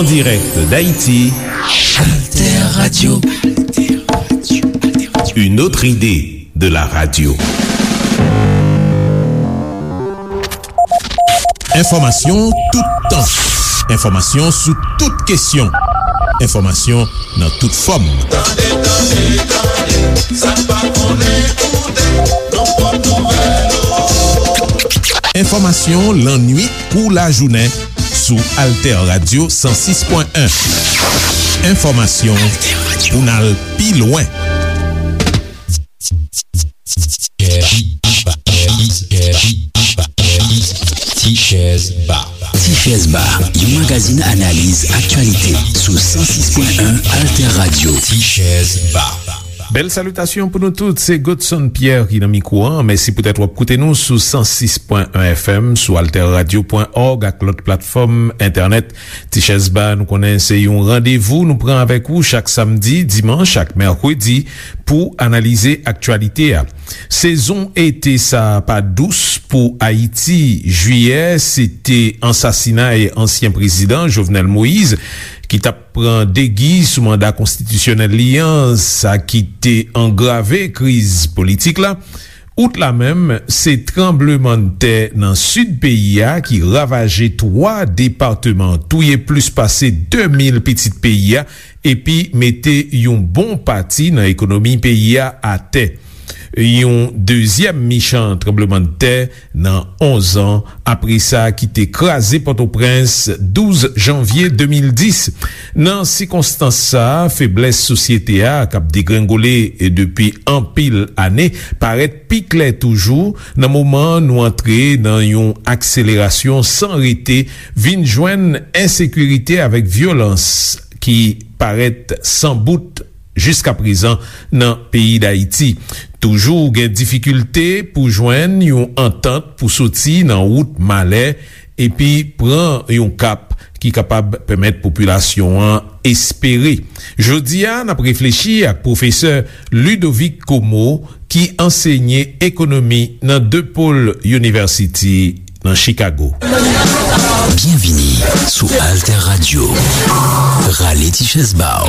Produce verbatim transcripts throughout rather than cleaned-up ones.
En direct d'Haïti, Alter Radio. Une autre idée de la radio. Enfòmasyon toutan. Enfòmasyon sou tout kesyon. Enfòmasyon nan tout fòm. Tande, tande, tande, sa n pa konnen koute, nan pwòp nouvèl ou. Enfòmasyon lannuit kou lajounen sou Alter Radio san sis pwen en. Enfòmasyon pou n al pi lwen. Tichèz Ba. Tichèz Ba, yon magazin analiz aktyalite sou san sis pwen en Alter Radio. Tichèz Ba. Bèl salitasyon pou nou tout, se Godson Pierre ki nan mikwo a. Mèsi poutèt w ap koute nou sou san sis pwen en F M, sou alter radio pwen org ak lòt platfòm entènèt. Tichèz Ba, nou konnen se yon randevou nou pran avèk ou chak samdi, dimanch ak mèkredi pou analize aktyalite a. Sezon ete sa a pa dous pou Ayiti. Jiyè, se te ansasinay ansyen prezidan Jovenel Moïse ki t ap pran degi sou manda konstitisyonèl li an, sa ki te angrave kriz politik la. Out la menm, se tranblemanntè nan sid peyi a ki ravaje twa depatman, touye plis pase de mil pitit peyi a, epi mete yon bon pati nan ekonomi peyi a atè. Yon dezyèm michan tranblemanntè nan onz an apre sa ki te kraze Pòtoprens douz janvye de mil dis. Nan sikonstans sa a, feblès sosyete a k ap degrengole depi anpil ane parèt pi klè toujou nan moman nou antre nan yon akselerasyon san rete, vin jwenn ensekirite avèk vyolans ki parèt san bout jiskaprezan nan peyi Dayiti. Toujou gen difikilte pou jwenn yon antant pou soti nan wout malè epi pran yon kap ki kapab pèmèt popilasyon an espere. Jodi a, n ap reflechi ak pwofesè Ludovic Comeau, ki ansenye ekonomi nan DePaul University nan Chicago. Byenvini sou Alter Radio. Rale ti chèz ba w.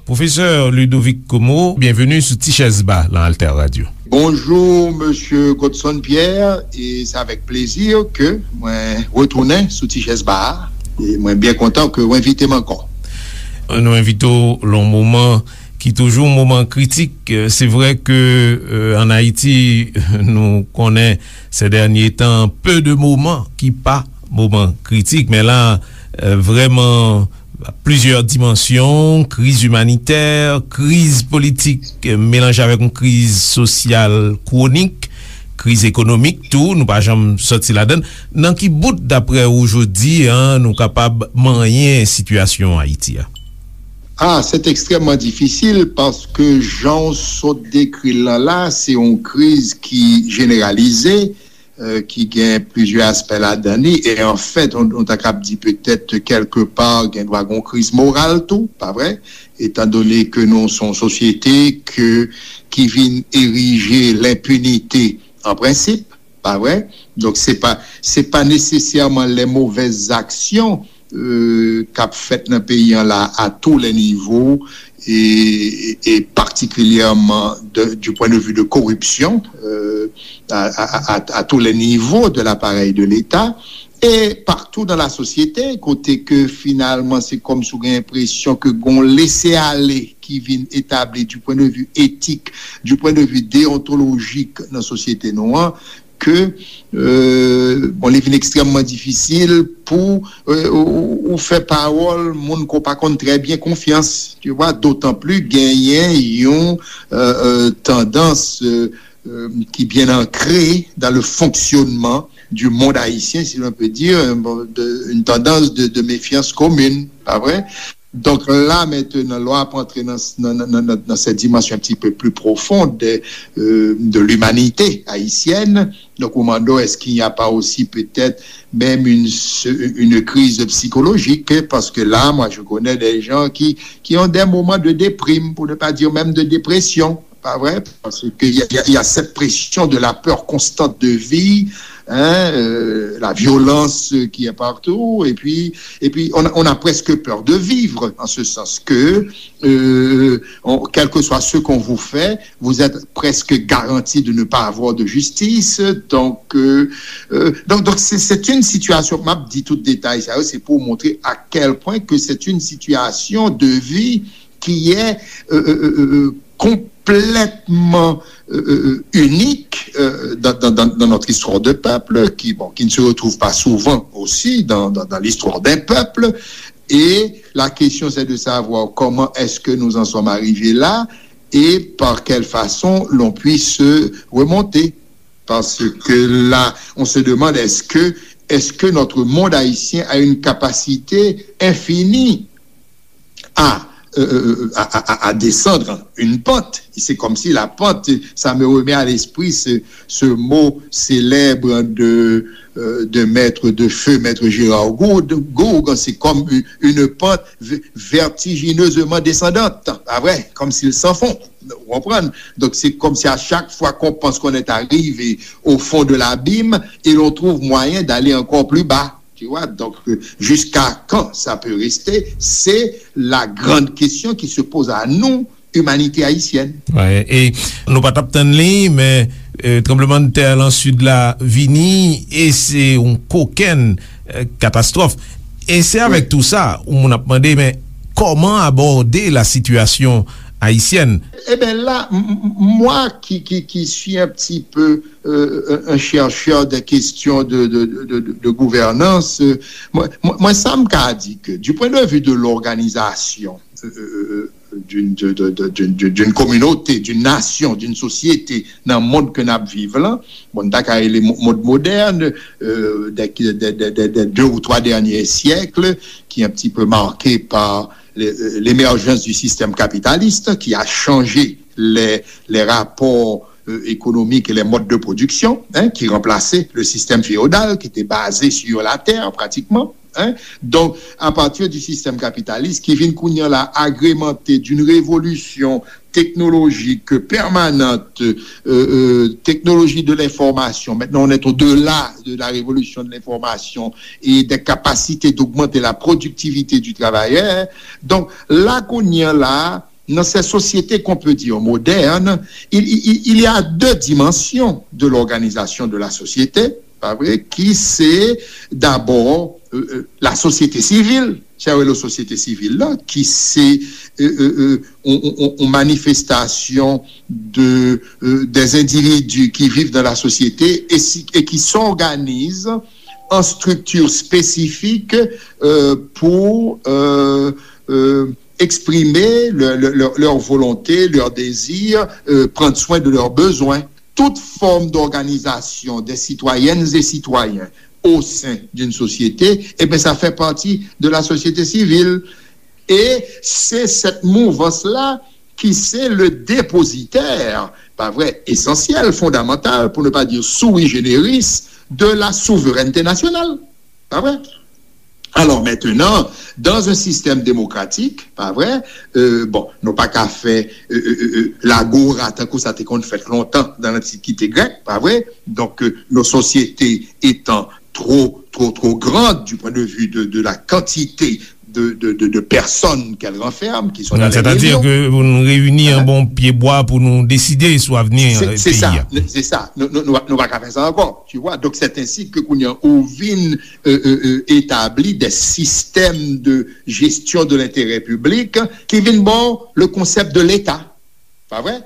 Pwofesè Ludovic Comeau, byenveni sou Ti Chèz Ba nan Alter Radio. Bonjou, mesye Godson Pierre, e se avèk plezi ke mwen retounen sou Ti Chèz Ba a. E mwen byen kontan ke w envite m ankò. Nou envite w lan yon moman ki toujou yon moman kritik. Se vre ke, euh, ann Ayiti, nou konnen, ces derniers temps, peu de moments ki pa moman kritik, men la, euh, vrèman, plizyè dimansyon, kriz imanitè, kriz politik, euh, melanje avèk yon kriz sosyal kwonik, kriz ekonomik tou, nou pa janm sòti ladan l. Nan ki bout, daprè ou, jodi a, nou kapab manyen sitiyasyon Ayiti a? Ah, c'est extrêmement difficile parce que jan w sot dekri l lan la, se yon kriz ki jeneralize, euh, ki gen plizyè aspè ladan li, e anfèt, on, on ta kab di petèt kèlkepa gen dwa gen yon kriz moral tou, pa vre? Etan done ke nou se yon sosyete ke, ki vin erije lenpinite an prensip, pa vre? Donk, se pa, se pa nesesèman les mauvaises actions, euh, k ap fèt nan peyi an la, à tous les niveaux, et, et particulièrement de, du point de vue de corruption, euh, à, à, à, à tous les niveaux de l'appareil de l'État, et partout dans la société, kote ke finalman se kòmsi w gen enpresyon ke gon lese ale ki vin etabli du point de vue éthique, du point de vue déontologique nan sosyete nou an, ke, euh, bon, li vin ekstrèmman difisil pou, euh, ou, ou fè pawòl moun ke w pa konn trè byen konfyans, tu vois, d'autant plus genyen yon, euh, euh, tandans, euh, euh, qui bien ancrée dans le fonctionnement du monde haïtien, si l'on peut dire, euh, bon, de, une tendance de, de méfiance commune, pa vre? Donk la, mentenan, lè w ap antre nan, nan, nan, nan, nan cette dimension un petit peu plus profonde de, euh, de l'humanité haïtienne, donk ou mande w, est-ce qu'il n'y a pas aussi peut-être même une, une crise psychologique? Parce que là, moi, je connais des gens qui, qui ont des moments de déprime, pour ne pas dire même de dépression. Pa vre? Paske y a, y a, y a cette pression de la peur constante de vie, hein, euh, la violence qui est partout, et puis, et puis on, a- on a presque peur de vivre, en ce sens que, euh, on- quel que soit ce qu'on vous fait, vous êtes presque garanti de ne pas avoir de justice. Donc, euh, euh, donc, donc c'est c'est une situation, m ap di tout detay sa yo, c'est pour montrer à quel point que c'est une situation de vie qui est euh, euh, euh, euh, complètement euh, euh, euh, unique euh, dans, dans, dans, dans notre histoire de peuple, qui, bon, qui ne se retrouve pas souvent aussi dans, dans, dans l'histoire d'un peuple. Et la question, c'est de savoir comment est-ce que nous en sommes arrivés là et par quelle façon l'on puisse remonter. Parce que là, on se demande, est-ce que, est-ce que notre monde haïtien a une capacité infinie à, euh, euh, à, à- à descendre une pente? C'est comme si la pente, ça me remet à l'esprit ce, ce mot célèbre de, euh, de maître de feu, maître Gérard Gourgue. Gourgue, c'est comme une, une pente v- vertigineusement descendante, pas vrai? Comme s'il s'enfonce. Vous comprenez? Donc c'est comme si à chaque fois qu'on pense qu'on est arrivé au fond de l'abîme, et l'on trouve moyen d'aller encore plus bas. Tu vois, donc euh, jusqu'à quand ça peut rester, c'est la grande question qui se pose à nous, humanité haïtienne. Wi, e nou pa t ap tann li, men euh, tranblemanntè lan sid la vini e se yon kokenn euh, katastwòf. E se avèk tou sa, yon moun ap mande, men kòman abòde la sitiyasyon ayisyèn? Eh bien là, m- m- moi qui, qui, qui suis un petit peu euh, un, un chercheur des questions de, de, de, de, de gouvernance, euh, moi, moi, moi, ça me dit que du point de vue de l'organisation euh, euh, d'une de- de- de- d'une- d'une- d'une communauté, d'une nation, d'une société, dans le monde que nous vivons là, bon, dans le monde moderne, euh, des, des- des- des- des deux ou trois derniers siècles, qui est un petit peu marqué par les- euh, l'émergence du système capitaliste, qui a changé les, les rapports euh, économiques et les modes de production, hein, qui remplaçaient le système féodal qui était basé sur la terre pratiquement. Hein. Donc, à partir du système capitaliste qui vient kounye a la agrémenté d'une révolution technologique permanente, euh, euh, technologie de l'information. Maintenant, on est au-delà de la révolution de l'information et des capacités d'augmenter la productivité du travailleur. Donc, là, kounye a la, dans ces sociétés qu'on peut dire modernes, il, il- il y a deux dimensions de l'organisation de la société, pas vrai, qui c'est d'abord euh, euh, la société civile. C'est la société civile là, qui c'est euh, euh, euh, on, on- on- une manifestation de, euh, des individus qui vivent dans la société et, si- et qui s'organisent en structure spécifique euh, pour euh, euh, exprimer leur, leur- leur- leur volonté, leur désir, euh, prendre soin de leurs besoins. Toute forme d'organisation des citoyennes et citoyens au sein d'une société, eh bien, ça fait partie de la société civile. Et c'est cette mouvance-là qui c'est le dépositaire, pas vrai, essentiel, fondamental, pour ne pas dire sui generis, de la souveraineté nationale. Pas vrai? Alors maintenant, dans un système démocratique, pas vrai, euh, bon, nou pa ka fè euh, euh, euh, lagora tankou sa te konn fèt lontan dans l'Antiquité grecque, pas vrai? Donc euh, nos sociétés étant trop, trop, trop grandes du point de vue de, de la quantité de, de, de, de personnes qu'elles renferment, qui sont dans les Sètadi millions. Ke pou nou reyini an bon pye bwa pou nou deside sou avni C'est euh, c'est peyi ça, a. c'est ça. Nou, nou, nou, nou pa ka fè sa ankò, tu vois. Donc c'est ainsi que kounye a ou vin euh, euh, euh, établi des systèmes de gestion de l'intérêt public qui vin bon le concept de l'État, pas vrai?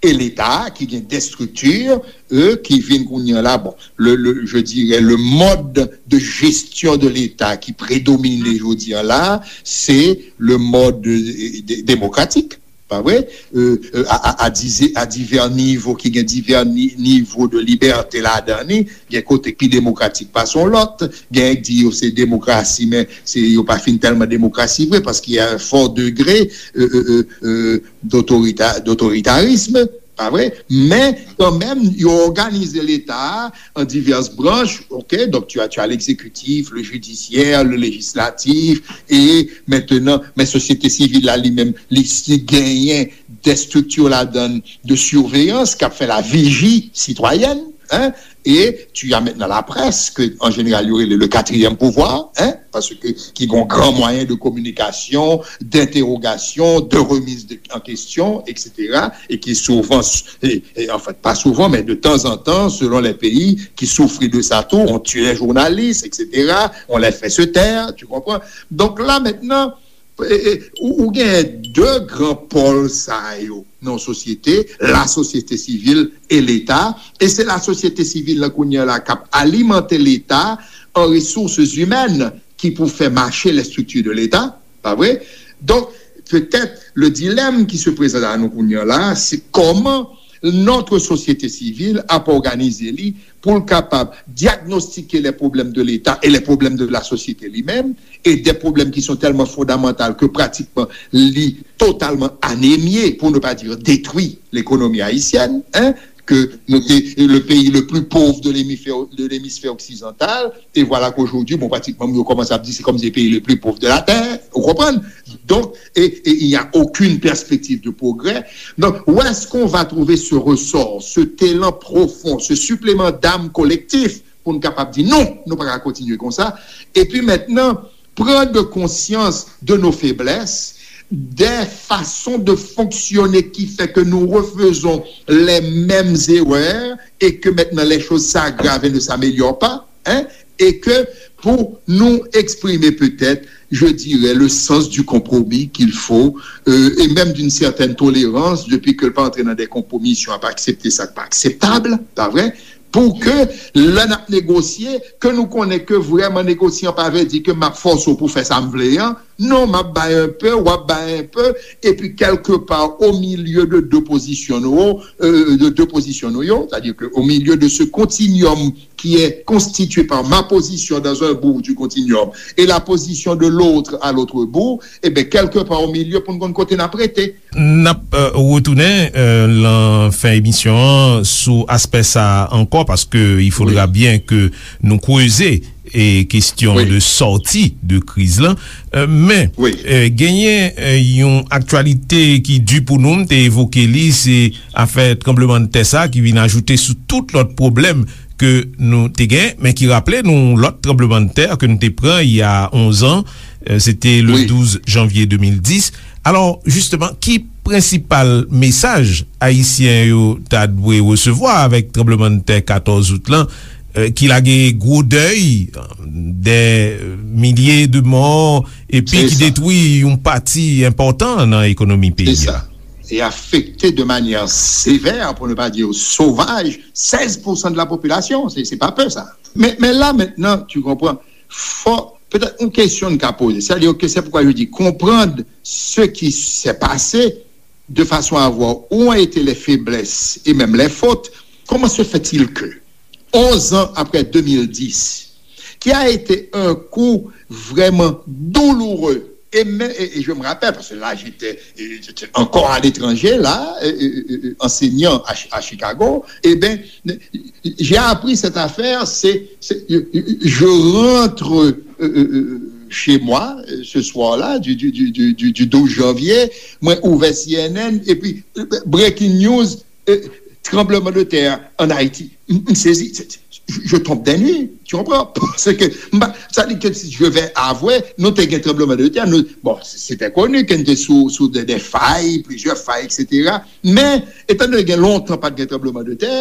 Et l'État qui vient des structures euh, qui vin kounye a la, bon, le, le, je dirais le mode de gestion de l'État qui prédomine jodi a la, c'est le mode euh, dé- démocratique. Pas vrai? Euh, euh, à, à, à, dizi- à divers niveaux, qui gagne divers ni- niveaux de liberté là-dedans, gen kote ki demokratik pase yon lòt, gen ki di yo se demokrasi, men se yo pa fin tèlman demokrasi vre, paske y a un fort degré euh, euh, euh, euh, d'autorita- d'autoritarisme, pas vrai? Men kanmenm, yo òganize Leta a an divès branch, ok? Donc tu as, tu as l'exécutif, le judiciaire, le législatif, et maintenant, men sosyete sivil la li menm, li si genyen des structures ladan de surveillance k ap fè la vigie citoyenne, Hein? Et tu as maintenant la presse, que en général, il y aurait le, le quatrième pouvoir, hein, parce que qui ont grand moyen de communication, d'interrogation, de remise de, en question, et cetera, et qui souvent, et, et en fait, pas souvent, mais de temps en temps, selon les pays, qui souffrent de ça tout, on tue les journalistes, et cetera, on les fait se taire, tu comprends? Donc là, maintenant, e, e, ou, ou gen de gran pòl sa yo nan yon sosyete, la société civile et l'État, e se la sosyete sivil la kounye a la k ap alimante Leta an ressources humaines ki pou fè mache les structures de l'État, pa vre? Donk, petèt, le dilemme qui se présente à nous kounye a la, se kòman notre société civile ap òganize li pou l kapab diagnostike les problèmes de l'État et les problèmes de la société li menm, et des problèmes qui sont tellement fondamentaux que pratiquement li totalement anémié, pour ne pas dire détruit, l'économie haïtienne, hein, que nou te, le pays le plus pauvre de l'hémisphère, de l'hémisphère occidental, et voilà qu'aujourd'hui, bon, pratiquement, nou kòmanse ap di se kòmsi le pays le plus pauvre de la terre, ou konprann? Donc, et, et il n'y a aucune perspective de progrès. Donc, où est-ce qu'on va trouver ce ressort, cet élan profond, ce supplément d'âme collectif pour nous capables de dire non, nous ne pouvons pas continuer comme ça. Et puis maintenant, prendre conscience de nos faiblesses, des façons de fonctionner qui fait que nous refaisons les mêmes erreurs et que maintenant les choses s'aggravent et ne s'améliorent pas, hein, et que pour nous exprimer peut-être, je dirais, le sens du compromis qu'il faut, euh, et même d'une certaine tolérance, depuis que le pas entrer dans des compromissions, à pas accepter ça, pas acceptable, pas vrai? Pou ke lè n ap negosye, ke nou konnen ke vrèman negosyan pa vle di ke m ap fòse w pou fè sa m vle an. Non, m ap bay enpe, w ap bay enpe, epi kèlkepa o milye de de pozisyon nou, euh, de de pozisyon nou yo, c'est-à-dire que au milieu de ce continuum qui est constitué par ma position dans un bout du continuum et la position de l'autre à l'autre bout, eh ben, quelque part au milieu, pou n konn kote n ap rete. N ap, euh, retounen, euh, lan fen emisyon an sou aspè sa a ankò, paske il faudra bien que nou kreze e kesyon de sòti de kriz lan. Euh, men, euh, genyen, euh, yon aktyalite ki di pou nou, m te evoke li, se afè tranblemanntè sa ki vin ajoute sou tout lòt pwoblèm ke nou te gen, men ki raple nou lòt tranblemanntè ke nou te pran il y a onze ans, euh, se te le douz janvye de mil dis. Alò, jisteman, ki prensipal mesaj ayisyen yo ta dwe resevwa avèk tranblemanntè katòz out lan, euh, ki lage gwo dèy, euh, dè milye de mò, epi ki detwi yon pati enpòtan nan ekonomi peyi a? E afekte de manière sévère, pour ne pas dire sauvage, seize pour cent de la population. C'est, c'est pas peu, ça. Mais, mais là, maintenant, tu comprends, faut, peut-être une question n ka poze, c'est-à-dire que c'est pourquoi je dis comprendre ce qui s'est passé de façon à voir où ont été les faiblesses et même les fautes. Comment se fait-il que, onze ans après deux mille dix, qui a été un coup vraiment douloureux, et, mais, et, et je me rappelle, parce que là, j'étais, j'étais encore à l'étranger, là, euh, euh, euh, enseignant à, à Chicago, eh bien, j'ai appris cette affaire, c'est, c'est, je, je rentre, euh, euh, euh, chez moi, euh, ce soir-là, du, du, du, du, du, du douze janvier, mwen ouvè C N N, epi, euh, breaking news, euh, tremblement de terre en Haïti. M, m sezi, je, je tombe des nues, tu comprends? Parce que, m pa, sa di ke si je vais avouer, nou te gen tranbleman de tè, nou, bon, c'était connu ke nou te sou, sou de, de fay, plizyè fay, et cetera. Men, etan donné gen lontan pa t gen tranbleman de tè,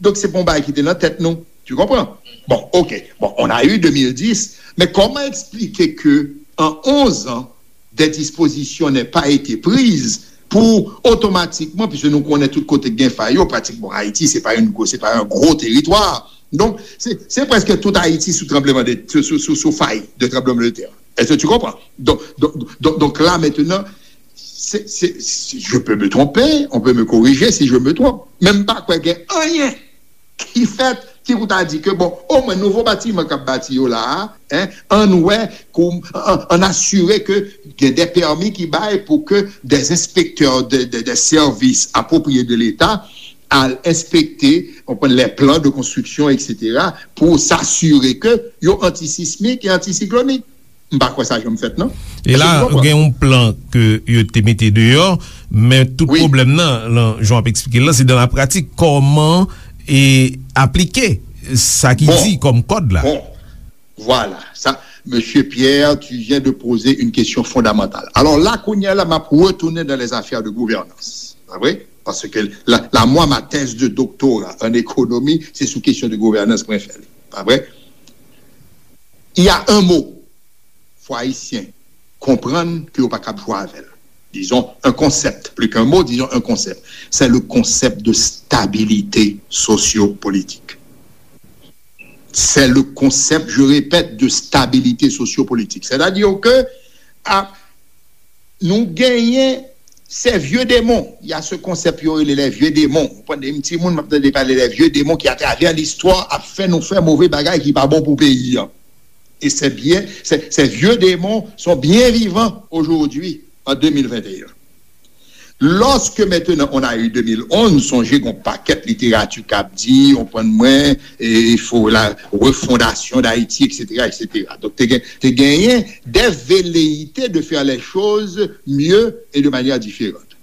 donk se pa yon bagay ki te nan tèt nou. Tu comprends? Bon, ok. Bon, on a eu deux mille dix, mais comment expliquer que en onze ans, des dispositions n'aient pas été prises pour automatiquement, puisque nou konnen tout kote gen fay yo, pratikman Ayiti, se pa yon gwo, se pa yon gwo teritwa. Donk, se, se prèske tout Ayiti sou tranbleman de, sou, sou, sou, sou fay de tranbleman de tè. Est-ce que tu comprends? Donc, donc, donc, donc là, maintenant, c'est, c'est, c'est, je peux me tromper, on peut me corriger si je me trompe. Men m pa kwè gen anyen ki fèt, ki pou ta di ke, bon, omwen nouvo batiman k ap bati yo la a, en, ann wè, kou, ann, ann asire ke gen de pèmi ki bay pou ke de enspektè de, de, de sèvis apwopriye de Leta al enspekte, konprann, les plans de construction, et cetera, pou s'assurer que yo antisismik e antisiklonik. M pa kwè sa janm fèt, non. E la, gen yon plan ke yo te mete deyò, men tout pwoblèm nan, lan, jan w ap eksplike l lan, se dan la pratik, kòman e aplike sa ki di kòm kòd la. Bon, voilà. Ça, Monsieur Pierre, tu viens de poser une question fondamentale. Alors là, kounye a la, m ap retounen dans les affaires de gouvernance. Pa vre? Paske la, la, mwa, ma tèz de doktora an ekonomi, se sou kesyon de gouvernance mwen fè li. Pa vre? Il y a un mot, fò Ayisyen konprann ke yo pa kab jwe avè l. Disons un concept, plus qu'un mot, disons un concept. C'est le concept de stabilité sociopolitique. C'est le concept, je répète, de stabilité sociopolitique. C'est-à-dire que a, nou genyen ces vieux démons. Il y a ce concept yo rele les vieux démons. Ou konprann, de timoun m ap tande pale les vieux démons ki atravè listwa ap fè nou fè move bagay ki pa bon pou peyi an. Et c'est bien, ces, ces vieux démons sont bien vivants aujourd'hui, en deux mille vingt et un. Lorsque maintenant on a eu deux mille onze, sonje gon pakèt literati k ap di, ou konprann mwen, e, il faut la refondation d'Haïti, et cetera, et cetera. Donk, te gen, te genyen des velléités de faire les choses mieux et de manière différente.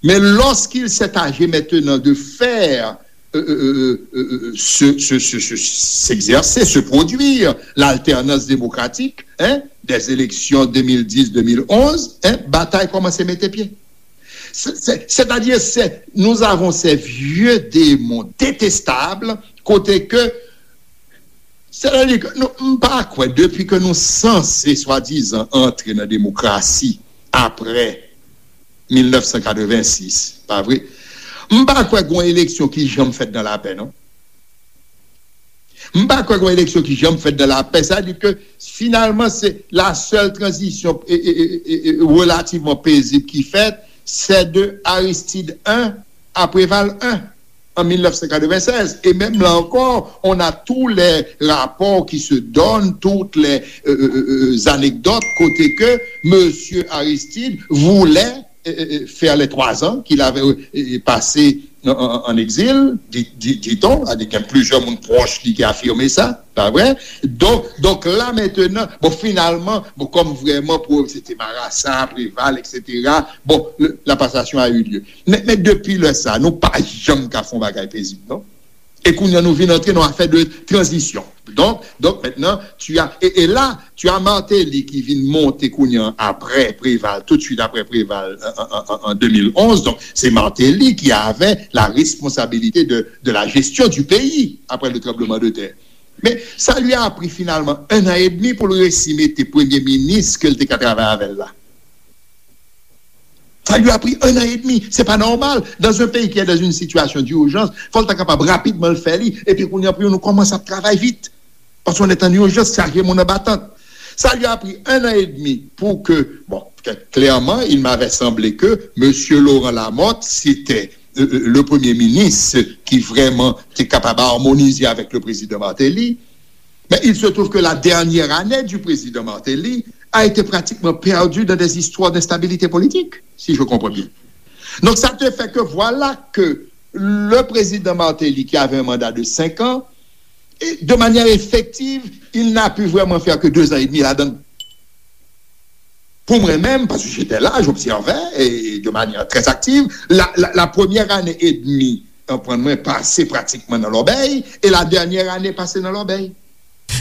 Mais lorsqu'il s'est agi maintenant de faire euh, euh, euh, euh, euh, se, se, se, se, s'exercer, se produire l'alternance démocratique, hein, des élections deux mille dix, deux mille onze, hein, batay kòmanse mete pye. C'est, c'est, c'est-à-dire, c'est, nous avons ces vieux démons détestables, kote ke, c'est-à-dire que nou, m pa kwè, depi ke nou sanse swadizan antre nan demokrasi apre mil nèf san katrevensis, pa vre? M pa kwè gon eleksyon ki janm fèt nan lapè, non. M pa kwè gon eleksyon ki janm fèt nan lapè. Sa di ke finalman se la sèl tranzisyon e, e, e, e, e relativman pezib ki fèt, c'est de Aristide un à Préval un en mille neuf cent quatre-vingt-seize. Et même là encore, on a tous les rapports qui se donnent, toutes les euh, euh, euh, anecdotes, kote ke Monsieur Aristide voulait euh, euh, euh, faire les trois ans qu'il avait euh, euh, passé en, en, en exil, dit, dit, dit-on, a di gen plizyè moun pwòch li ki afime sa, pa vre? Donk, donk la mentenan, bon, finalman, bon, kòm vrèman pou se te Marasa, Preval, et cetera, bon, le, la passation a eu lieu. Men, men depi lè sa, nou pa janm ka fè yon bagay pezib, non? E kounye a nou vin antre nan afè de tranzisyon. Donk, donk maintenant, tu as, et, et là, tu as Martelly ki vin monte kounye a apre Preval, tout de suite apre Preval, an, an, an, an deux mille onze. Donk, se Martelly ki avè la responsabilité de, de la gestion du pays après le tremblement de terre. Men sa li a pri finalman un an et demi pou l resi mete premye minis ke l te ka travay avè l la. Ça lui a pris un an et demi. C'est pas normal. Dans un pays qui est dans une situation d'urgence, fò l ta kapab rapidman l fè li. Epi kounye a pou nou kòmanse ap travay vit. Parce qu'on est en urgence, chaje moun anba tant. Ça lui a pris un an et demi pour que, bon, clairement, il m'avait semblé que Monsieur Laurent Lamothe, c'était euh, euh, le premier ministre qui vraiment était capable d'harmoniser avec le président Martelly. Mais il se trouve que la dernière année du président Martelly a été pratiquement perdue dans des histoires d'instabilité politique, si je comprends bien. Donc ça te fait que voilà que le président Martelly, qui avait un mandat de cinq ans, et de manière effective, il n'a pu vraiment faire que deux ans et demi là-dedans. Pour moi-même, parce que j'étais là, j'observais et de manière très active, la, la, la première année et demie, euh, pran mwen pase pratikman nan lòbèy, e la dènyè ane pase nan lòbèy.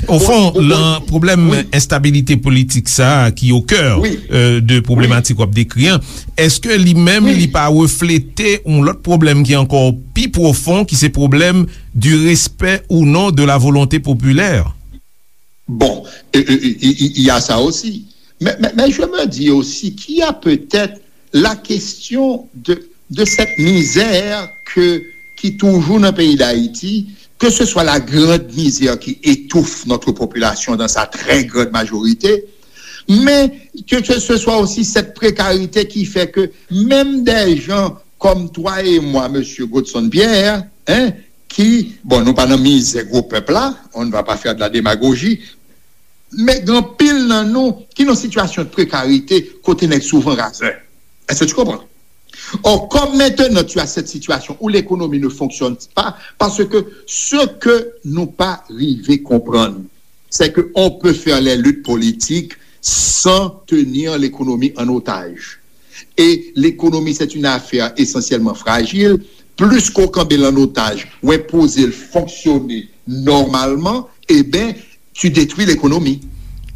Ofon, nan pwoblèm enstabilite politik sa a ki okè de pwoblematik w ap dekri an, èske li menm li pa reflete yon lòt pwoblèm ki ankò pi pwofon, ki se pwoblèm du respect ou non de la volonté populaire? Bon, il y a ça aussi. Mais, mais, mais je me dis aussi qu'il y a peut-être la question de, de cette misère que, qui toujours dans le pays d'Haïti, que ce soit la grande misère qui étouffe notre population dans sa très grande majorité, mais que, que ce soit aussi cette précarité qui fait que même des gens comme toi et moi, monsieur Godson Pierre, hein, ki, bon, nou pa nan mizè gwo pèp la, on ne va pas faire de la démagogie, men gen anpil nan nou ki nan sitiyasyon de prekarite kote nèg souvan razè. Est-ce que tu comprends? Or, comme maintenant tu as cette situation où l'économie ne fonctionne pas, parce que ce que nou pa rive konprann, c'est que on peut faire les luttes politiques sans tenir l'économie en otage. Et l'économie, c'est une affaire essentiellement fragile. plis ke w kanbe l an otaj, w enpoze l fonksyone nòmalman, eben, tu détruis l'économie.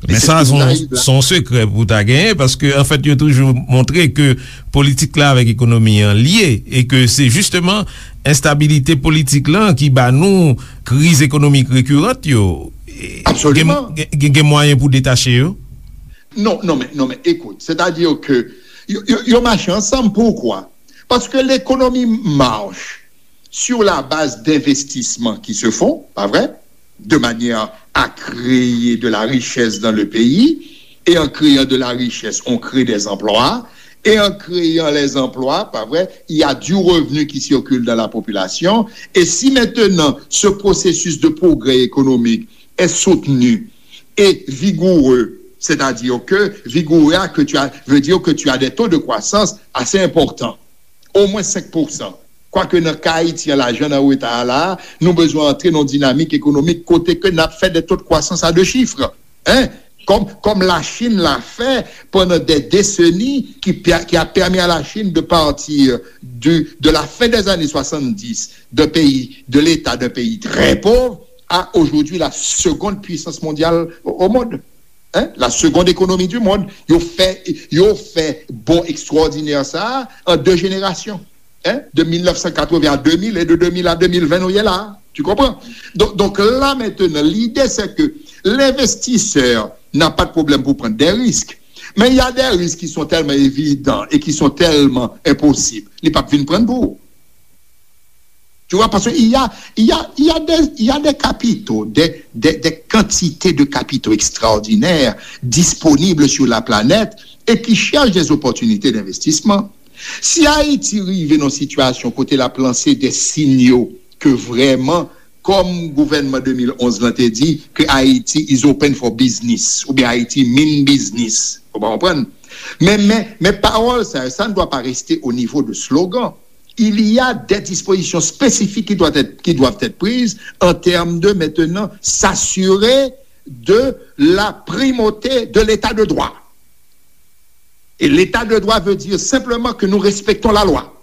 Men sa, se yon sekrè pou w ta genyen, paske, anfèt, yo toujou montre ke politik la avèk ekonomi an lye, e ke se jisteman enstabilite politik lan ki ba nou kriz ekonomik rekirant yo. Absoliman. Gen, gen, gen mwayen pou detache yo? Non, non, men, non, men, écoute, c'est-à-dire que yo, yo, yo mache ansanm. Poukwa? Parce que l'économie marche sur la base d'investissements qui se font, pas vrai, de manière à créer de la richesse dans le pays, et en créant de la richesse, on crée des emplois, et en créant les emplois, pas vrai, il y a du revenu qui circule dans la population, et si maintenant ce processus de progrès économique est soutenu et vigoureux, c'est-à-dire que vigoureux que tu as, veut dire que tu as des taux de croissance assez importants, au moins cinq pour cent. Kwake nan ka Ayiti an, lajan nan reta a la, nou bezwen antre nan yon dinamik ekonomik kote ke n ap fè de taux de croissance à deux chiffres. Hein? Comme, comme la Chine l'a fait pendant des décennies, qui, qui a permis à la Chine de partir du, de la fin des années soixante-dix, d'un pays, de l'état d'un pays très pauvre, à aujourd'hui la seconde puissance mondiale au, au monde. Hein? La seconde économie du monde. Yo fè, yo fè bond extraordinaire sa a en deux générations. Hein? De mil neuf cent quatre-vingts à deux mille et de deux mille à deux mille vingt, nou ye la. Tu comprends? Donc, donc là maintenant, l'idée c'est que l'investisseur n'a pas de problème pour prendre des risques. Mais il y a des risques qui sont tellement évidents et qui sont tellement impossibles. Li p ap vin pran pou ou. Tu vois, parce qu'il y a, il y a, il y a des, il y a des capitaux, des, des, des quantités de capitaux extraordinaires disponibles sur la planète et qui cherchent des opportunités d'investissement. Si Ayiti rive nan sitiyasyon kote l ap lanse de sinyo ke vrèman, kòm gouvènman de mil onz lan te di, ke Ayiti is open for business, oubyen Ayiti mean business, ou pa konprann? Men, men, men pawòl sa yo, ça ne doit pas rester au niveau de slogan. Il y a des dispositions spécifiques qui doivent être, qui doivent être prises en termes de maintenant s'assurer de la primauté de l'état de droit. Et l'état de droit veut dire simplement que nous respectons la loi.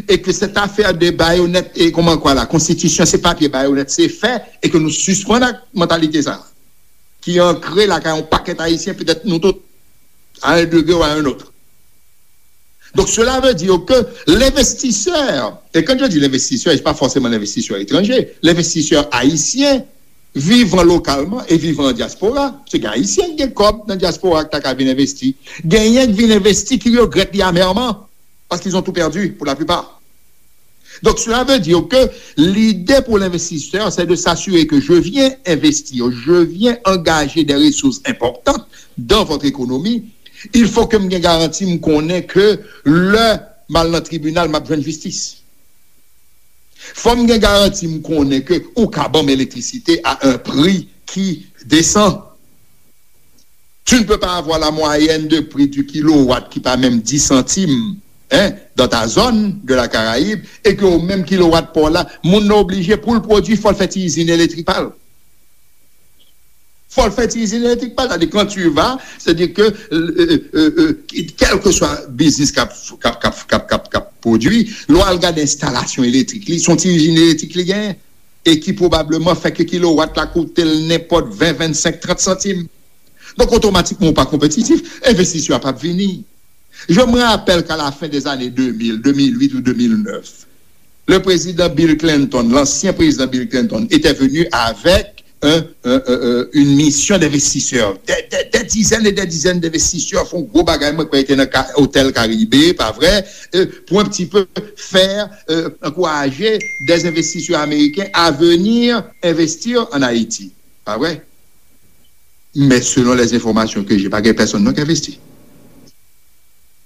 Et que cette affaire de baïonnette, et comment quoi, la constitution, c'est papier, baïonnette, c'est fait, et que nous suspendons la mentalité ça, qui est ancrée là, quand on paquet haïtien, peut-être nous tous, à un degré ou à un autre. Donc, cela veut dire que l'investisseur, et quand je dis l'investisseur, c'est pas forcément l'investisseur étranger, l'investisseur haïtien, vivant localement et vivant en diaspora, se gen Ayisyen ki gen kòb nan dyaspora ki ta ka vin envesti. Genyen ki vin envesti ki regrèt li amèrman, parce qu'ils ont tout perdu pour la plupart. Donc, cela veut dire que l'idée pour l'investisseur, c'est de s'assurer que je viens investir, je viens engager des ressources importantes dans votre économie. Il faut que m gen garanti, m konnen ke lè m al nan tribinal, m ap jwenn jistis. Fò m gen garanti, m konnen ke ou ka ban m elektrisite à un prix qui descend. Tu ne peux pas avoir la moyenne de prix du kilowatt qui pa menm dix centimes, hein, dans ta zone de la Caraïbe, e ke ou menm kilowatt pa w la, moun nan oblije pou l pwodui, fò l fè ti izin elektrik pa l. Fò l fè ti izin elektrik pa l. Sa di, quand tu vas, c'est-à-dire que, euh, euh, euh, euh, quel que soit business k ap, k ap, k ap, k ap, k ap, k ap pwodui, lè w al gade enstalasyon elektrik li, se yon ti izin elektrik li genyen, e ki pwobableman fè ke kilowatt la koute l nenpòt ven, vennsenk, trant santim. Donk, otomatikman, ou pa konpetitif, envestisè a p ap vini. Je me rappelle qu'à la fin des années deux mille, deux mille huit ou deux mille neuf, le président Bill Clinton, l'ancien président Bill Clinton, était venu avec un, un, un, un, une mission d'investisseurs, des, des, des dizaines et des dizaines d'investisseurs, fè yon gwo bagay, mwen kwè te nan Ka-, Hotel Caribe, pa vre, euh, pour un petit peu faire, euh, encourager des investisseurs américains à venir investir en Haïti. Pa vre? Men selon les informations que j'ai, pa gen pèsonn non ki envesti.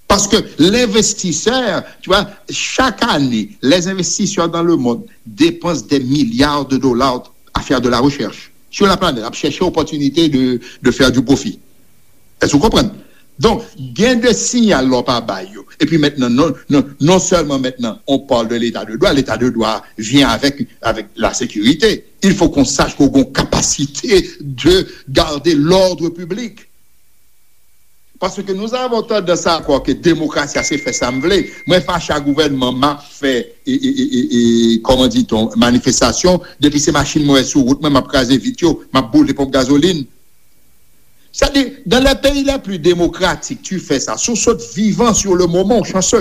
Parce que l'investisseur, tu vois, chaque année, les investisseurs dans le monde dépensent des milliards de dollars à faire de la recherche sur la planète, ap chèche opportunité de, de faire du profit. Èske w konprann? Donk, gen de siyal lè w pa bay yo. Epi mentnan, non, non, non sèlman mentnan, on parle de l'état de droit, l'état de droit vient avec, avec la sécurité. Il faut qu'on sache qu'on a une capacité de garder l'ordre public. Paske nou avon tandans a kwè ke demokrasi a se fè sa m vle. Mwen fache a gouvènman, m ap fè, e, e, e, e, e, kòman di-t-on, manifestasyon. Depi se machin mwen wè sou wout mwen, m ap kraze vit yo, m ap boule ponp gazolin. Sa di, dans les pays les plus démocratiques, tu fais ça. Si w sot vivan sur le moment, w chanse.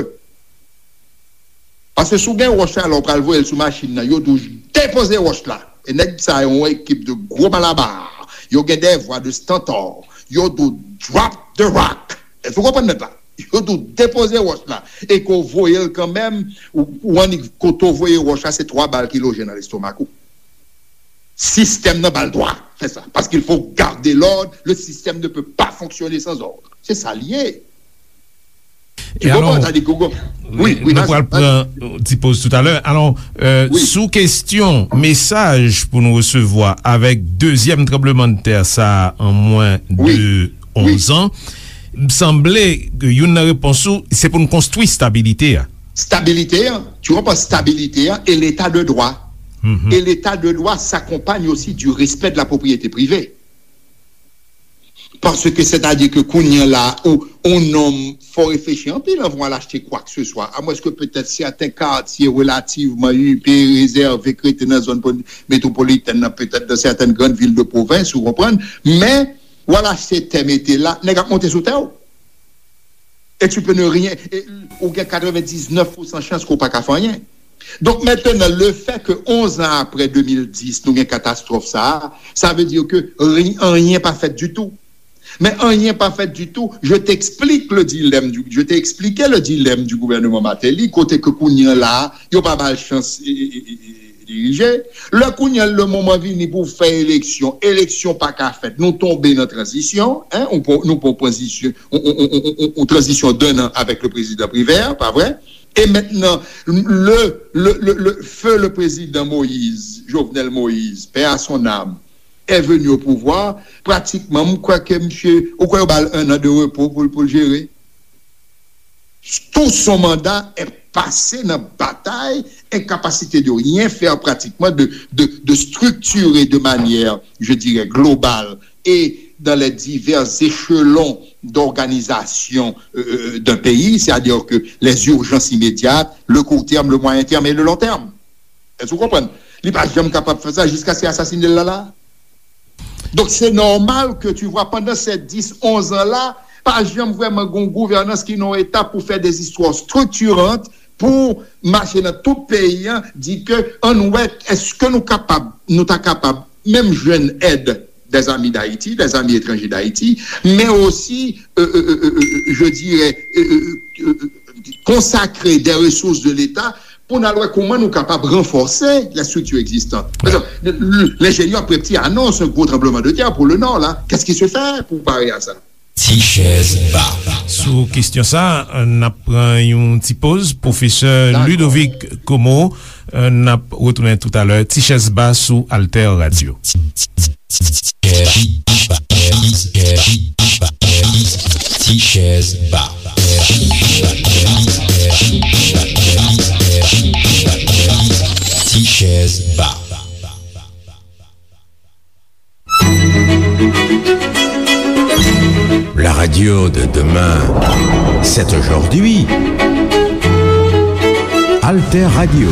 Paske si w gen wòch la, lè w pral voye l sou machin nan, yo di w depoze wòch la. E nèg sa yo, yon ekip de gwo malabar. Yo gen de vwa de stantor. Yo di w drop the rock. Èske w konprann nèt la? Yo di w depoze wòch la. E ke w voye l kanmenm, ou, ou annik kote w voye wòch la, se twa bal ki loje nan lestomak ou. Sistèm nan ba l dwa fè sa. Parce qu'il faut garder l'ordre, le système ne peut pas fonctionner sans ordre. Se sa l ye. Tu comprends? Sa di, Gogo. Wi, wi, nou pral pran yon ti poz toutalè. Alò, euh, sou kesyon mesaj pou nou resevwa avèk dezyèm tranblemanntè sa a an mwen de onz an, m sanble ke youn nan repons ou, se pou n konstwi stabilite a. Stabilité, hein, tu comprends, stabilité, hein, et l'état de droit. Et l'état de droit s'accompagne aussi du respect de la propriété privée. Paske sètadi ke kounye a la, ou, ou nonm, fò reflechi anpil anvan w al achte kwa ke se swa. Amwens ke petèt sèten katye relativman ipe, rezève, k rete nan zòn pon-, metwopolitèn nan, petèt dans certaines grandes villes de province, ou konprann. Men, w al achte tè mete la, nèg ap monte sou tè w. E tu peux ne rien, e, ou gen katrevendiznèf pousan chans ke w pa ka fè anyen. Donk, mentnan, le fè ke onz an apre de mil dis, nou gen katastwòf sa a, sa vle di ke ri-, anyen pa fèt ditou. Men anyen pa fèt ditou, je t'explique le dilemme du, je t'ai expliqué le dilemme du gouvernement Martelly, kote ke kounye a la, yo pa ba l chans, e, e, e, e, dirije. Lè kounye a, le moman vini pou fè eleksyon, eleksyon pa ka fèt. Nou tonbe nan tranzisyon, hein, nou pran, nou pran tranzisyon, on, on, on, on, on tranzisyon d'un an avec le président Privert, pa vre? E mentnan, le, le, le, le feu le président Moïse, Jovenel Moïse, paix à son âme, est venu au pouvoir, pratikman, m kwè ke misye, ou kwè yo ba l un an de repo pou l, pou l jere? Tout son mandat est passé dans bataille, incapacité de rien faire pratiquement, de, de, de structurer de manière, je dirais, globale et dans les divers échelons d'organisation, euh, euh, d'un pays, c'est-à-dire que les urgences immédiates, le court terme, le moyen terme et le long terme. Èske w konprann? Li pa janm kapab fè sa jiskaske y asasinen l la la. Donk, se nòmal ke, tu vois, pandan ces dix, onze an la, pa janm vrèman gen yon gouvènans ki nan yon eta pou fè des histoires structurantes, pou mache nan tout peyi a, di ke ann wè, èske nou kapab, nou ta kapab menm jwenn èd des amis d'Haïti, des amis étrangers d'Haïti, mais aussi, euh, euh, euh, euh, euh, je dirais, euh, euh, euh, euh, consacrer des ressources de l'État pou n al wè kòman nou kapab ranfòse les structures existantes. Par exemple, le, le, l'ingénieur Prepti annonce un gros tremblement de terre pour le Nord, là. Qu'est-ce qui se fait pour parer à ça? Ti chèz ba. Sou kesyon sa, n ap pran yon ti poz. Pwofesè Ludovic Como, n ap retounen toutalè. Ti chèz ba sou Alter Radio. Ti chèz ba. Ti chèz ba. La radio de demain, c'est aujourd'hui. Alter Radio,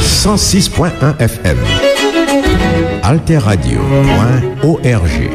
cent six point un F M. Alter Radio point O R G.